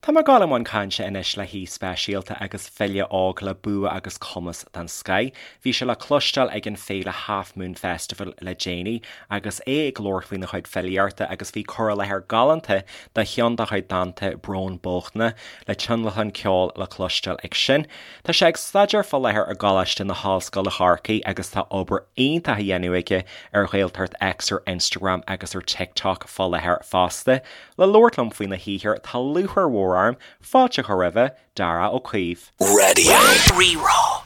Tá mé ag dul i mbun cainte anois le haoi speisialta agus file óg le bua agus cumas den scoith. Bhí sé le cloisteáil ag an féile Half Moon Festival le déanaí agus é ag labhairt faoina chuid filíochta agus bhí cur i láthair galánta de cheann dá chuid dánta Brón Bochtna le tionlacan ceoil le cloisteáil ag sin. Tá sé ag staidéar fá láthair i gColáiste na hOllscoile Chorcaí agus tá obair iontach á dhéanamh aige ar Ghaeltacht X ar Instagram agus ar TikTok fá láthair fosta. Le labhairt liom faoina shaothar tá lúcháir mhór orm fáilte a chur roimhe, Darach Ó Caoimh. Radio Rí-Rá.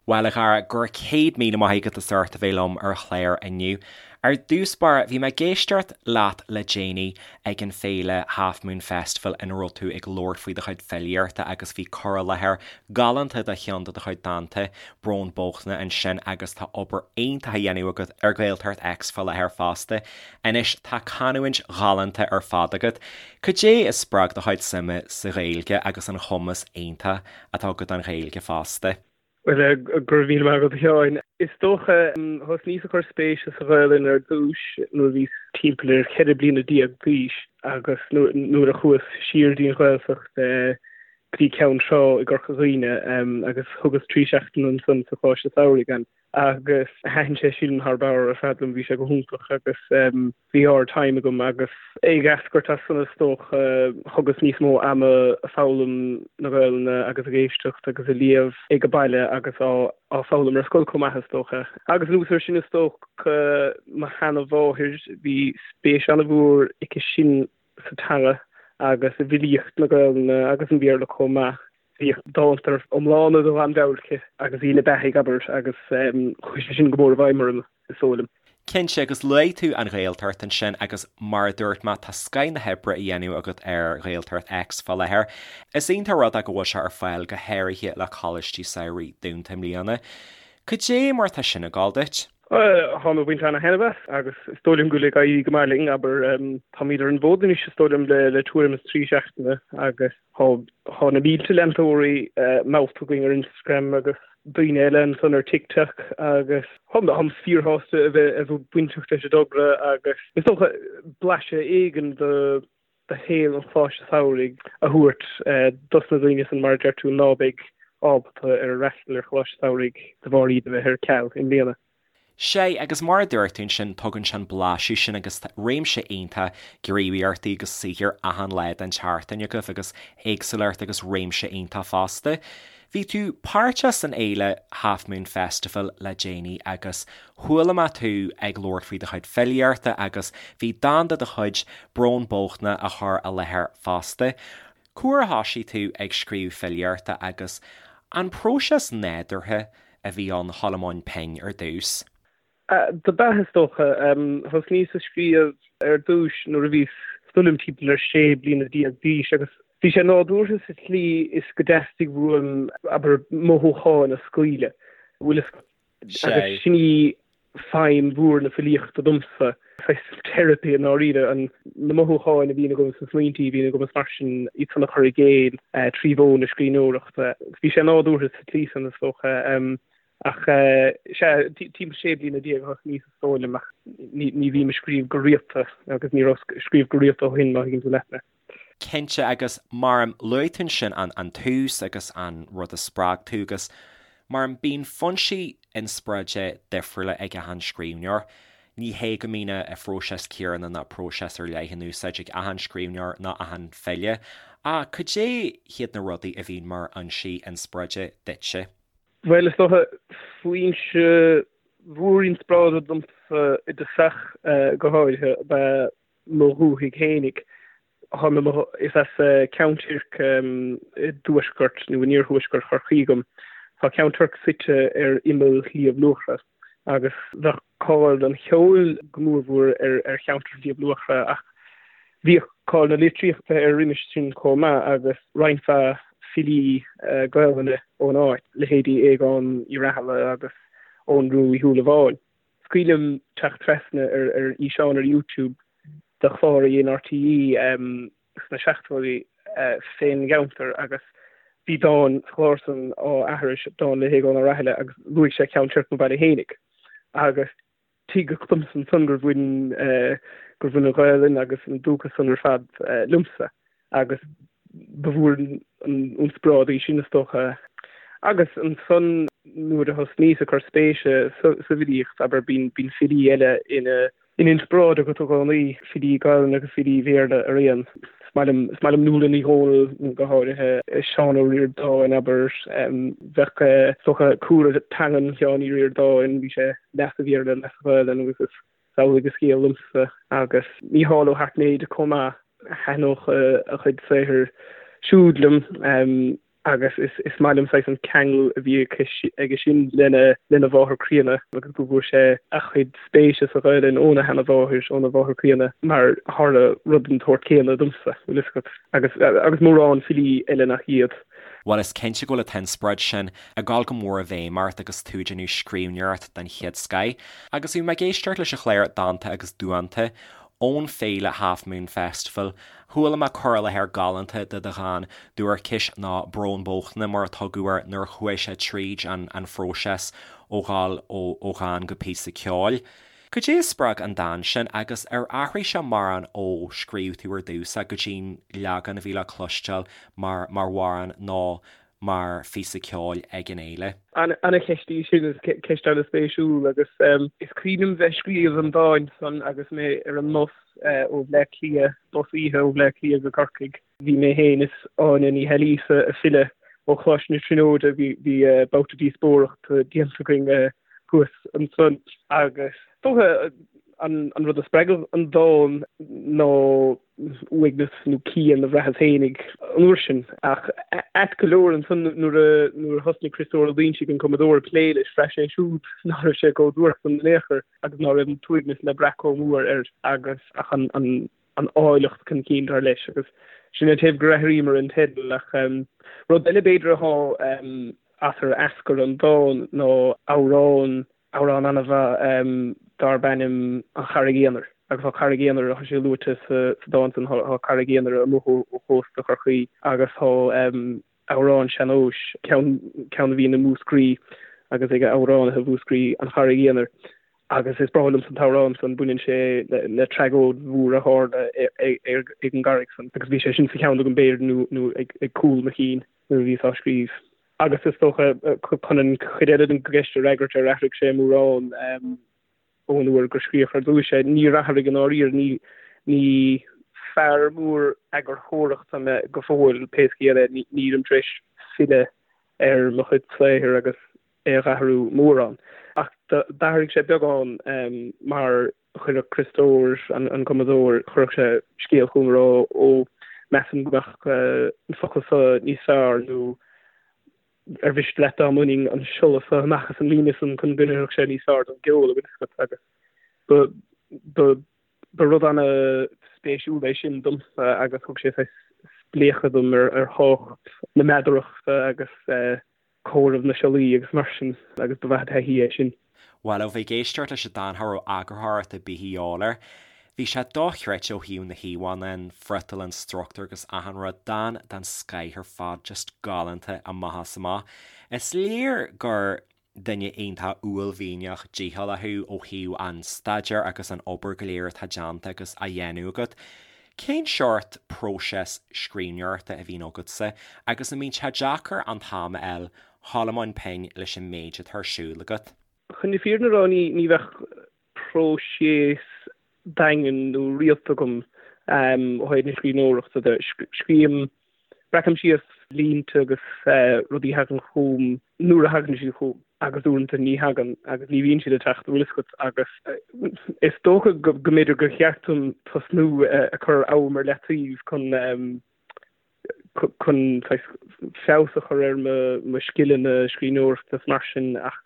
Bhuel a Dhara, go raibh 100,000 maith agat as ucht a bheith liom ar an chlár inniu. Ar dtús báire, bhí mé ag éisteacht leat le déanaí ag an féile Half Moon Festival ina raibh tú ag labhairt faoi do chuid filíochta agus bhí cur i láthair galánta de cheann de do chuid dánta, Brón Bochtna, ansin agus tá obair iontach á dhéanamh agat ar Ghaeltacht X fá láthair fosta. Anois tá canúint ghalánta ar fad agat. Cad é a spreag do chuid suime sa Ghaeilge agus an chumas iontach atá agat don Ghaeilge fosta? Bhuel, go raibh míle maith agat a Sheáin. Is dócha, thosnaíos ag cur spéise sa Ghaelainn ar dtús nuair a bhíos timpeall ar 14 bliana d'aois agus nuair a chuas siar dtí an Ghaeltacht go dtí Ceann Trá i gCorca Dhuibhne agus thugas 3 seachtaine ansan sa Choláiste Samhraidh ann. agus thaitin sé sin thar barr ar fad liom, bhí sé go hiontach agus bhí ard-time agam agus ag eascairt as san is dócha thugas níos mó ama ag foghlaim na Gaelainne agus ag éisteacht agus ag léamh ag an baile agus á á foghlaim ar scoil chomh maith is dócha. Agus anuas air sin is dócha mo sheana-mháthair, bhí spéis an-mhór aici sin sa teanga agus i bhfilíocht na Gaelainne agus an Bhéarla chomh maith. Bhíodh dánta iomlána de Ghlanmheabhair aici agus í ina beathaidh, abair, agus chuaigh sé sin go mór i bhfeidhm orm, is dóigh liom. Cinnte, agus luaigh tú an Ghaeltacht ansin agus mar a dúirt mé, tá scoith na hoibre á dhéanamh agat ar Ghaeltacht X fá láthair. Is iontach rud é go bhfuil sé ar fáil go háirithe le coláistí samhraidh dúnta i mbliana. Cad é mar atá sin ag gabháil duit? Táim ag baint ana-thaitneamh as agus is dóigh liom go bhfuil ag éirí go maith linn, abair. Táimid ar an bhfód anois is dóigh liom le tuairim is 3 seachtaine agus tá na mílte leantóirí meallta againn ar Instagram agus daoine eile ansan ar TikTok agus táim fíorshásta a bheith bainteach leis an dtogra agus is dócha blaiseadh éigin de de shaol an Choláiste Samhraidh a thabhairt dos na daoine san, mar a deir tú, ná beidh ábalta ar fhreastal ar Choláiste Samhraidh de bharr iad a bheith ar ceal i mbliana. Sea, agus mar a dúirt tú ansin, tugann sé an blaiseadh sin agus réimse iontach gníomhaíochtaí agus saothair achan lá den tseachtain agaibh agus éagsúlacht agus réimse iontach fosta. Bhí tú páirteach san fhéile Half Moon Festival le déanaí agus chuala mé tú ag labhairt faoi do chuid filíochta agus bhí dán de do chuid, Brón Bochtna, á chur i láthair fosta. Cá huair a thoisigh tú ag scríobh filíochta agus an próiseas nádúrtha a bhí ann a dhul i mbun pinn ar dtús? Dob ea, is dócha. Thosnaíos ag scríobh ar dtús nuair a bhíos, is dóigh liom, timpeall ar 16 bliana d'aois agus bhí sé nádúrtha sa tslí is go dteastaigh uaim, abair, mothúcháin a scaoileadh. Bhfuil fhios agat? Agus sin í feidhm mhór na filíochta domsa, saghas teiripí i ndáiríre, an, na mothúcháin a bhíonn agam is na smaointí a bhíonn agam is mar sin, iad san a chur i gcéill trí mhodh na scríbhneoireachta. Bhí sé nádúrtha sa tslí san, is dócha. Ach sea, timpeall 16 bliana a thosnaíos is dóigh liom, ach ní bhím ag scríobh go rialta agus ní raibh ag scríobh go rialta ó shin, má thuigeann tú leat mé. Cinnte, agus mar a luaigh tú ansin an tús agus an rud a spreag tú agus mar bíonn foinsí inspioráide difriúla ag achan scríbhneoir. Ní hé go mbíonn an phróiseas céanna ná próiseas ar leith in úsáid ag achan scríbhneoir ná achan file, ach cad é hiad na rudaí a bhíonn mar fhoinsí inspioráide duitse? Bhuel, is dócha, foinse mhór inspioráide domsa i dtosach go háirithe ab ea mo dhúthaigh fhéinig. Is as Ceann Toirc i dtuaisceart nó in iarthuaisceart Chorcaí dom. Tá Ceann Toirc suite ar imeall Shliabh Luachra agus bheadh cáil an cheoil go mórmhór ar cheantar Shliabh Luachra ach bhíodh cáil na litríochta air roimis sin chomh maith agus roinnt mhaith filí Gaelainne ón áit, leithéidí Aogán Uí Rathaille agus Eoghan Rua Uí Shúilleabháin. Is cuimhin liom teacht trasna ar fhíseán ar YouTube de chlár a dhein RTÉ sna seachtóidí fén gceantar agus bhí dán sa chlár san á aithris, dán le hAogán Ó Rathaille agus luaigh sé Ceann Toirc mo bhaile fhéinig agus tuigeadh domsa ansan gur bhain gur bhain an Ghaelainn agus an dúchas san ar fad liomsa agus. Ba mhór an inspioráid í sin is dócha. Agus ansan nuair a thosnaíos ag cur spéise sa bhfilíocht, abair, bíonn filí eile ina n-inspioráid agat i gcónaí, filí Gaelainne agus filí Bhéarla araon. Is maith liom, is maith liom Nuala Ní Dhomhnaill go háirithe, Seán Ó Ríordáin, abair. Bheadh, is dócha, cúlra teangan Sheáin Uí Ríordáin, bhí sé leath sa Bhéarla, leath sa Ghaelainn agus is amhlaidh an scéal liomsa. Agus Mícheál Ó hAirtnéide chomh maith, thaitneodh a chuid saothair siúd liom. Agus is maith liom saghas an ceangal a bhí aige sin lena lena mháthair chríonna agus go bhfuair sé a chuid spéise sa Ghaelainn óna sheanamháthair, óna mháthair chríonna, mar tharla rud den tsórt céanna domsa, bhfuil fhios agat, agus agus mórán filí eile nach iad. Bhuel, is cinnte go bhfuil an t-inspioráid sin ag dul go mór i bhfeidhm ort agus tú ag déanamh scríbhneoireacht den chéad scoith. Agus bhí mé ag éisteacht leis an chlár Dánta agus Duanta ón féile Half Moon Festival Chuala mé cur i láthair galánta de do dhán Duairceas nó Brón Bochtaine mar a tugadh air nuair a chuaigh sé tríd an an phróiseas ó dhul ó dhán go píosa ceoil. Cad é a spreag an dán sin agus ar athraigh sé mórán ó scríobh tú ar dtús é go dtí'n leagan a bhí le cloisteáil mar mar amhrán nó mar phíosa ceoil ag an fhéile? Ana-cheist í sin, is ceist ana-spéisiúil agus is cuimhin liom bheith ag scríobh an dáin san agus mé ar an mbus ó Bhleá Cliath, bus oíche ó Bhleá Cliath go Corcaigh. Bhí mé féin is Áine Ní hAilíosa ag filleadh ó Choláiste na Tríonóide, bhí babhta díospóireachta déanta againn thuas ansan agus is dócha an rud a spreag an dán ná uaigneas nó pian a bhraitheas fhéinig an uair sin. Ach ait go leor ansan nuair a nuair a thosnaigh Criostóir Ó Loingsigh, an cumadóir, ag plé leis, bhraith sé siúd ná raibh sé chomh duairc san in aon chor agus ná raibh an t-uaigneas le brath chomh mór air agus ach an an an áilleacht chun cinn dar leis agus sin an taobh gur athraíomar an teideal ach rud eile b'fhéidir athá as ar eascair an dán ná amhrán amhrán an-mhaith darb ainm An Charraig Aonair agus tá Carraig Aonair, tá sé luaite sa dán san, tá Carraig Aonair amuigh ó chósta Chorcaí agus tá amhrán sean-nóis, ceann ceann a bhíonn i Múscraí agus ag amhránaithe Mhúscraí, An Charraig Aonair agus is breá liomsa an t-amhrán san, baineann sé le tragóid mhór a tharla ag an gcarraig san agus bhí sé sin sa cheann agam b'fhéidir nó nó ag cúl mo chinn nuair a bhíos á scríobh. Agus is dócha, chun an chuid eile den gceist a fhreagairt, ar athraigh sé mórán ón uair gur scríodh ar dtúis é? Níor athraigh i ndáiríre. Ní, ní fear mór eagarthóireachta mé go fóill, pé scéal é. Nílim tar éis filleadh ar mo chuid saothair agus é a dh'athrú mórán. Ach d'athraigh sé beagán mar Chuirfeadh Criostóir, an cumadóir, chuirfeadh sé scéal chugam ag rá, ó, measaim go mbeadh an focal seo níos fearr nó ar mhiste leat dá mbainfinn an siolla seo amach as an líne san chun go n-oirfeadh sé níos fearr don gceol, an bhfuil fhios agat, agus ba, ba, ba rud ana-spéisiúil é sin domsa agus thug sé saghas spléachadh dom ar, ar thábhacht na meadarachta agus eh, comhaireamh na siollaí agus mar sin agus ba mhaith an taithí é sin. Bhuel, ó bheith ag éisteacht leis an dán cha raibh eagarthóireacht ar bith a dhíobháil air. Bhí sé dochreidte ó thaobh na híomhánna, an friotal, an struchtúr agus achan rud. Dán den scoith ar fad, just galánta amach is amach. Is léir gur duine iontach uaillmhianach dícheallach thú ó thaobh an staidéir agus an obair go léir atá déanta agus á dhéanamh agat. Cén seort próiseas scríbhneoireachta a bhíonn agatsa agus an mbíonn sé deacair an t-am a fháil dhul i mbun pinn leis an méid atá ar siúl agat? Chun na fírinne a rá, ní bheadh próiseas daingean nó rialta agam ó thaobh na scríbhneoireachta de. Scríobhaim, breacaim síos línte agus rudaí a thagann chugam nuair a thagann siad chugam agus uaireanta ní thagann agus ní bhíonn siad ag teacht, an bhfuil fhios agat, agus is dócha go mb'fhéidir gur cheart dom tosnú ag cur am ar leataobh chun chun saghas feabhas a chur ar mo mo scileanna scríbhneoireachta is mar sin ach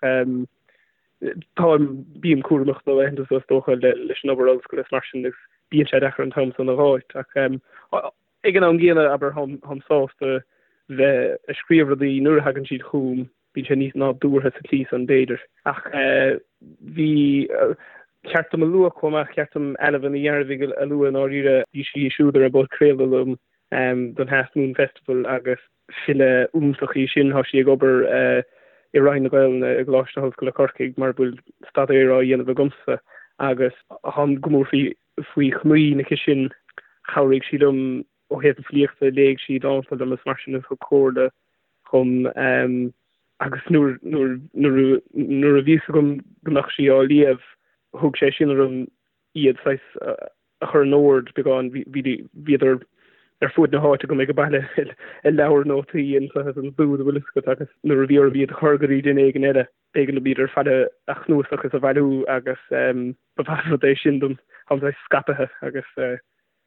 táim bím cúramach na laethanta seo is dócha leis an obair ollscoile is mar sin agus bíonn sé deacair an t-am san a dh'fháilt ach Ag an am gcéanna, abair, táim sásta bheith ag scríobh rudaí nuair a thagann siad chugam, bíonn sé níos nádúrtha sa tslí san, b'fhéidir. Ach bhí, cheart dom a lua chomh maith, cheart dom Ailbhe Ní Ghearbhuigh a lua i ndáiríre, bhí sí siúd ar an bpodchraoladh liom don Half Moon Festival agus file iontach í sin, tá sí ag obair i Roinn na Gaelainne i gColáiste na hOllscoile Corcaigh mar a bhfuil staidéar á dhéanamh agamsa agus táim go mór faoi faoi chomaoin aici sin. Chabhraigh sí liom. Ó thaobh na filíochta, léigh sí dánta liom is mar sin is thug comhairle dhom agus nuair nuair a bhí fhios agam go mbeadh sí á léamh, thug sé sin orm iad saghas a chur in ord beagán. Bhíodar ar fuaid na háite agam ag baile i leabhar nótaí anseo is ansiúd, an bhfuil fhios agat, agus nuair a bhí orm iad a chur go dtí duine éigin eile, b'éigean dom iad ar fad a chnuasach is a bhailiú agus ba mhaith an rud é sin dom. Táim saghas scaipthe agus ba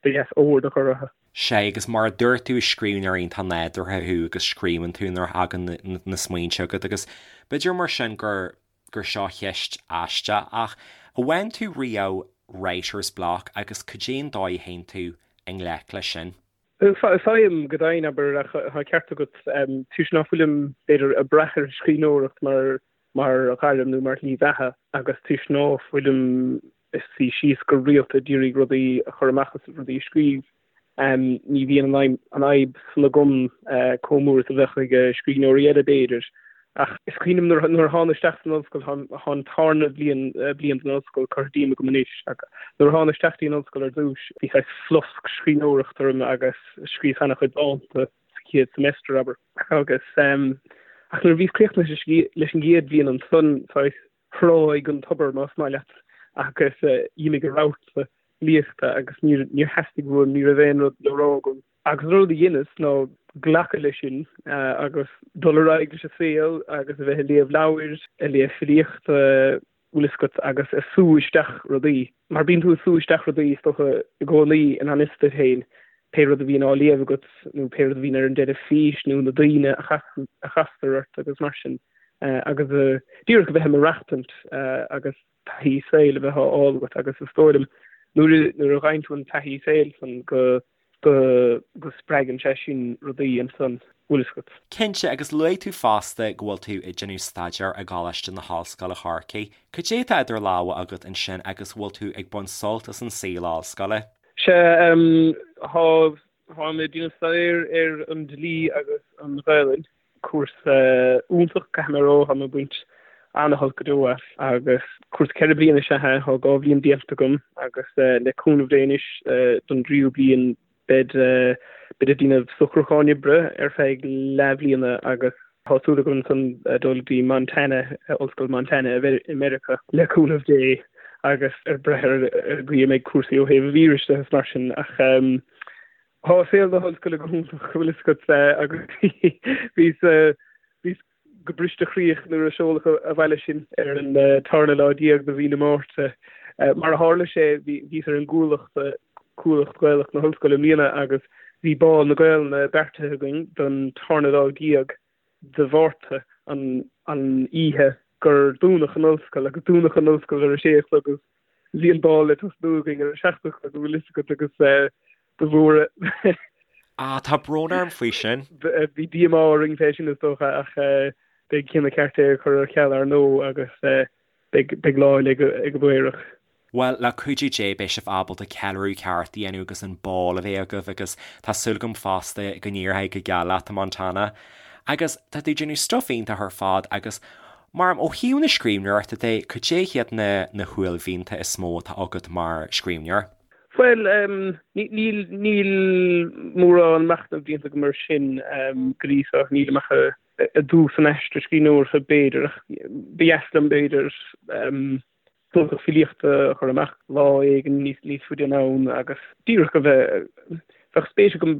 dheas ord a chur orthu. Sea, agus mar a dúirt tú, is scríbhneoir iontach nádúrtha thú agus scríobhann tú nuair a thagann na smaointe agat agus b'fhéidir mar sin gur gur seo ceist aisteach ach an bhfaigheann tú riamh writer's block agus cad é an dóigh a théann tú i ngleic leis sin? Faighim go deimhin, abair, ach tá ceart agat, toisc ná fuilim, b'fhéidir, ag brath ar an scríbhneoireacht mar mar ghairm nó mar shlí bheatha agus toisc ná fuilim ag suí síos go rialta ag iarraidh rudaí a chur amach is rudaí a scríobh, ní bhíonn an fhadhb san agam chomh mór is a bheadh ag scríbhneoirí eile b'fhéidir. Ach is cuimhin liom nuair a thána isteach san ollscoil, tá an tarna bhliain bliain den ollscoil curtha díom agam anois, ach nuair a thána isteach dtí an ollscoil ar dtús, bhí saghas flosc scríbhneoireachta orm agus scríobhas an-chuid dánta sa chéad semester, abair. Agus ach nuair a bhíos críochnaithe leis an gcéad bhliain ansan, saghas thráigh an tobar, más maith leat, agus d'imigh an rabharta filíochta agus níor theastaigh uaim, ní raibh aon rud le rá agam. Agus an rud a dheineas ná glacadh leis sin agus dul ar aghaidh leis an saol agus a bheith ag léamh leabhair, ag léamh filíochta, bhfuil fhios agat, agus ag sú isteach rudaí. Mar bíonn tú ag sú isteach rudaí is dócha i gcónaí i ngan fhios duit féin, pé rud a bhíonn á léamh agat nó pé rud a bhíonn ar an dteilifís nó na daoine a chastar ort agus mar sin. Agus díreach a bheith ag maireachtaint agus taithí saoil a bheith á fháil agat agus is dóigh liom nuair nuair a fhaigheann tú an taithí saoil san go go go spreagann sé sin rudaí ansan, bhfuil fhios agat. Cinnte, agus luaigh tú fosta go bhfuil tú ag déanamh staidéir i gColáiste na hOllscoile Chorcaí. Cad é atá idir lámha agat ansin agus bhfuil tú ag baint sult as an saol ollscoile? Sea, tá táim ag déanamh staidéir ar an dlí agus an Ghaelainn. Cúrsa iontach, caithfidh mé a rá, tá mé ag baint ana-shult go deo as agus cúrsa 4 bliana is ea é, tá 2 bhliain déanta agam agus le cúnamh Dé anois don dtríú bliain beid beid ag déanamh socrúcháin oibre ar feadh leathbhliana agus tá súil agam ansan dul go dtí Montana, Ollscoil Montana i Meiriceá le cúnamh Dé agus ag brath ar an gcaoi a mbeidh cúrsaí ó thaobh an víris de is mar sin ach Tá saol na hollscoile go hiontach, bhfuil fhios agat, agus bhíos bhíos go bristechroíoch nuair a seoladh abhaile sinn ar an tarna lá déag de mhí na Márta. Mar a tharla sé, bhíos ar an gCuallacht, Cuallacht Ghaelach na hOllscoile i mbliana agus bhí Bál na Gaelainne beartaithe againn don tarna lá déag de Mhárta, an oíche gur dúnadh an ollscoil, agus dúnadh an ollscoil ar a sé a chlog agus bhí an bál le tosnú againn ar a 7 a chlog, an bhfuil fhios agat, agus ba mhór Ah, tá brón orm faoi sin. Bhí díomá orainn fé sin is dócha ach beidh cinneadh ceart é a chur ar ceal ar ndóigh agus beidh lá eile ag an bPaorach. Bhuel, le cuidiú Dé beidh sibh ábalta ceiliúradh ceart a dhéanamh agus an bál a bheith agaibh agus tá súil agam fosta go n-éireoidh go geal leat i Montana. Agus tá tú ag déanamh stuif iontach ar fad agus mar ó thaobh na scríbhneoireachta de, cad é hiad na na huaillmhianta is mó atá agat mar scríbhneoir? Bhuel, níl níl mórán machnaimh déanta agam air sin go dtí seo, nílim ach i dtús an aistir scríbhneoireachta b'fhéidir ach ba dheas liom b'fhéidir cnuasach filíochta a chur amach lá éigin níos faide anonn agus díreach a bheith, bheadh spéis agam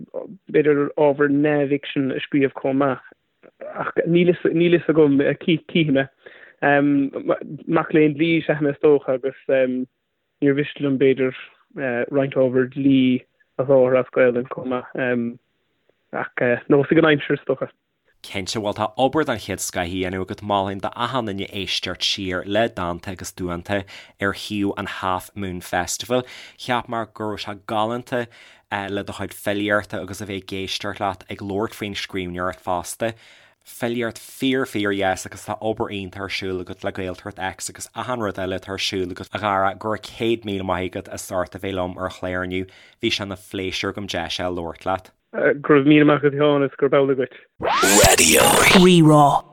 b'fhéidir ábhar neamhfhicsin a scríobh chomh maith ach níl fhios agam, cífidh mé. Mac léinn dlí is ea mé is dócha agus níor mhiste liom b'fhéidir roinnt ábhar dlí a sholáthar as Gaelainn chomh maith ach neosfaidh an aimsir is dócha. Cinnte, bhuel tá obair den chéad scoith á dhéanamh agat, mholfainn d'achan duine éisteacht siar le Dánta agus Duanta ar shuíomh an Half Moon Festival. Cheap mé go raibh sé galánta le do chuid filíochta agus a bheith ag éisteacht leat ag labhairt faoin scríbhneoireacht fosta. Filíocht fíor fíor dheas agus tá obair iontach ar siúl agat le Gaeltacht X agus achan rud eile atá ar siúl agat a Dhara, go raibh 100,000 maith agat as ucht a bheith liom ar an chlár inniu, bhí sé ina phléisiúr agam deis a labhairt leat. Go raibh míle maith agat a Sheáin is gurb amhlaidh dhuit. Raidió Rí-Rá.